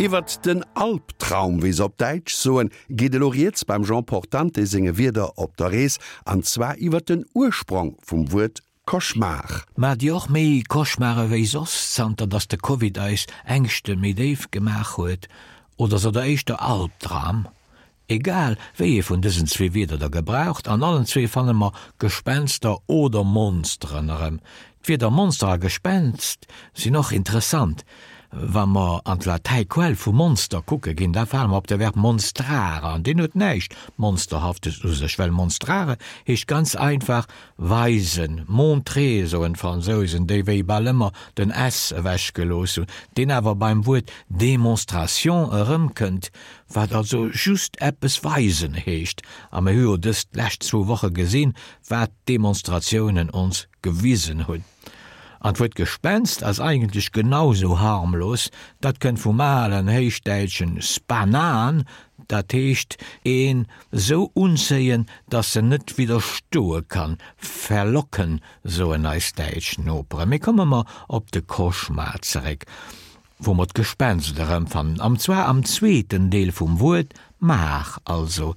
Iwwert den Albtraum, wéi se op Däitsch soen, geet elo rieds beim Jean Portante senge Wierder op der Rees, an zwar iwwert den Ursprong vum Wuert Cauchemar. Maacht Dir och méi Cauchemare wéi soss, zanter dass de Covid eis Ängschte méi déif gemaach huet? Oder sot der éischter Albdram? Egal wéi ee vun dësen zwee Wierder der gebraucht, an allen zwee fanne mer Gespenster oder Monsteren erëm. D'Wierder Monster a Gespenst sinn och interessant. Wa mer an d'Latäi Quell vu Monster kucke ginn, da fale mer op de Verb monstrare an deen huet näischt Monsterhaftes u sech, well monstrare heescht ganz einfach weisen, montrer soen d'Fransousen, déi wéi bal ëmmer den s ewechgelooss hunn, deen awer beim Wuert démonstration erëmkënnt, wat also just eppes weisen heescht, a mir hu jo dës lescht zwou Woche gesinn, wat d'Demonstratiounen ons gewisen hunn. An d'Wuert Gespenst ass eigentlech genau sou harmlos, dat kënnt vum alen héichdäitschen spanan, dat heescht een sou unzéien, dass en net widderstoe kann, verlocken, soen eis däitsch Noperen. Mee komme mer op de Cauchemar zeréck. Wou mer d'Gespenst erëmfannen, an zwar am zweeten Deel vum Wuert maar, also.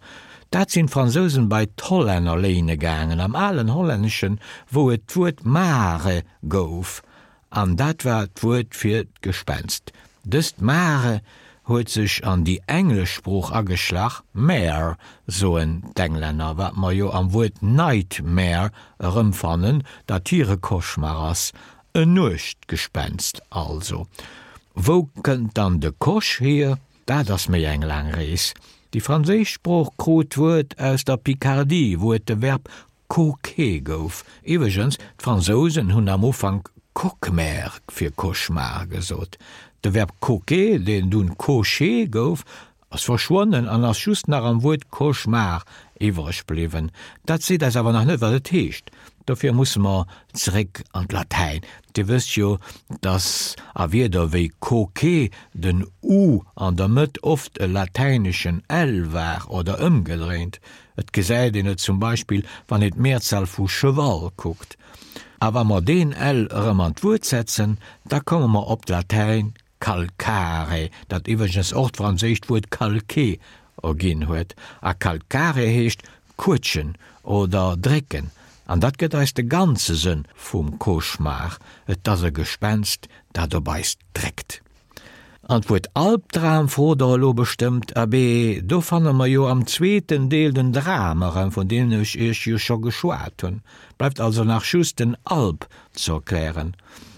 Dat sinn d'Fransousen bei d'Hollänner léine gaangen, am alen Hollänneschen, wou et d'Wuert mare gouf, an dat war d'Wuert fir d'Gespenst. Dëst mare huet sech an déi englesch Sprooch ageschlach, mare soen d'Englänner, wat mer jo am Wuert nightmare erëmfannen, dat hire Cauchemar ass, En Nuechtgespenst also. Wou kënnt dann de Coche hier? Dat ass méi eng laang Rees. Déi franséisch Sprooch krut d'Wuert aus der Picardie, wou et de Verb coquer gouf. Iwwregens, d'Fransousen hunn am Ufank coquemère fir Cauchemar gesot. De Verb coquer, deen dunn cocher gouf, Ass verschwonnen an ass just nach am Wuert Cauchemar iwwreg bliwwen. Dat seet eis awer nach net, wat et heescht. Dofir musse mer zeréck an d'Latäin. Dir wësst jo, dass a Wierder wéi coquet den u an der Mëtt oft e latäineschen l war oder ëmgedréint. Et gesäit een et zum Beispill, wann een d'Mehrzahl vu cheval kuckt. A wa mer deen l erëm an d'Wuert setzen, da komme mer op d'Latäin Calcare, dat iwwregens och d'franséischt Wuert calquer erginn huet. A calcare heescht quëtschen oder drécken, an dat gëtt eis de ganze Sënn vum Cauchemar, et ass e Gespenst, dat op eis dréckt. An d'Wuert Albdram frot der elo bestëmmt. Abee, do fanne mer jo am zweeten Deel den Dram erëm, vun deem ech iech jo scho geschwat hunn. Bleift also nach just den Alb ze erklären.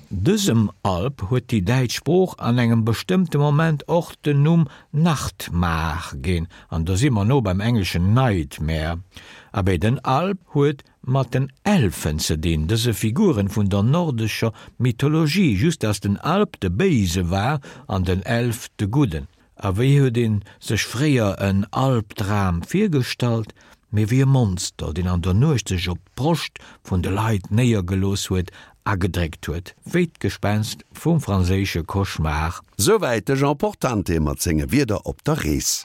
Dësem Alb huet déi däitsch Sprooch an engem bestëmmte Moment och den Numm Nachtmar ginn, an do si mer no beim engleschen Nightmare. Abee, den Alb huet mat den Elfen ze dinn, dëse Figuren vun der nordescher Mythologie, just dass den Alb de Béise war an den Elf de Gudden. A wéi huet een sech fréier en Albdram virgestallt? Mee wéi e Monster, deen an der Nuecht sech op d'Broscht vun de Leit néiergelooss huet a gedréckt huet, wéi d'Gespenst vum franséische Cauchemar. Souwäit de Jean Portante mat senge Wierder op der Rees.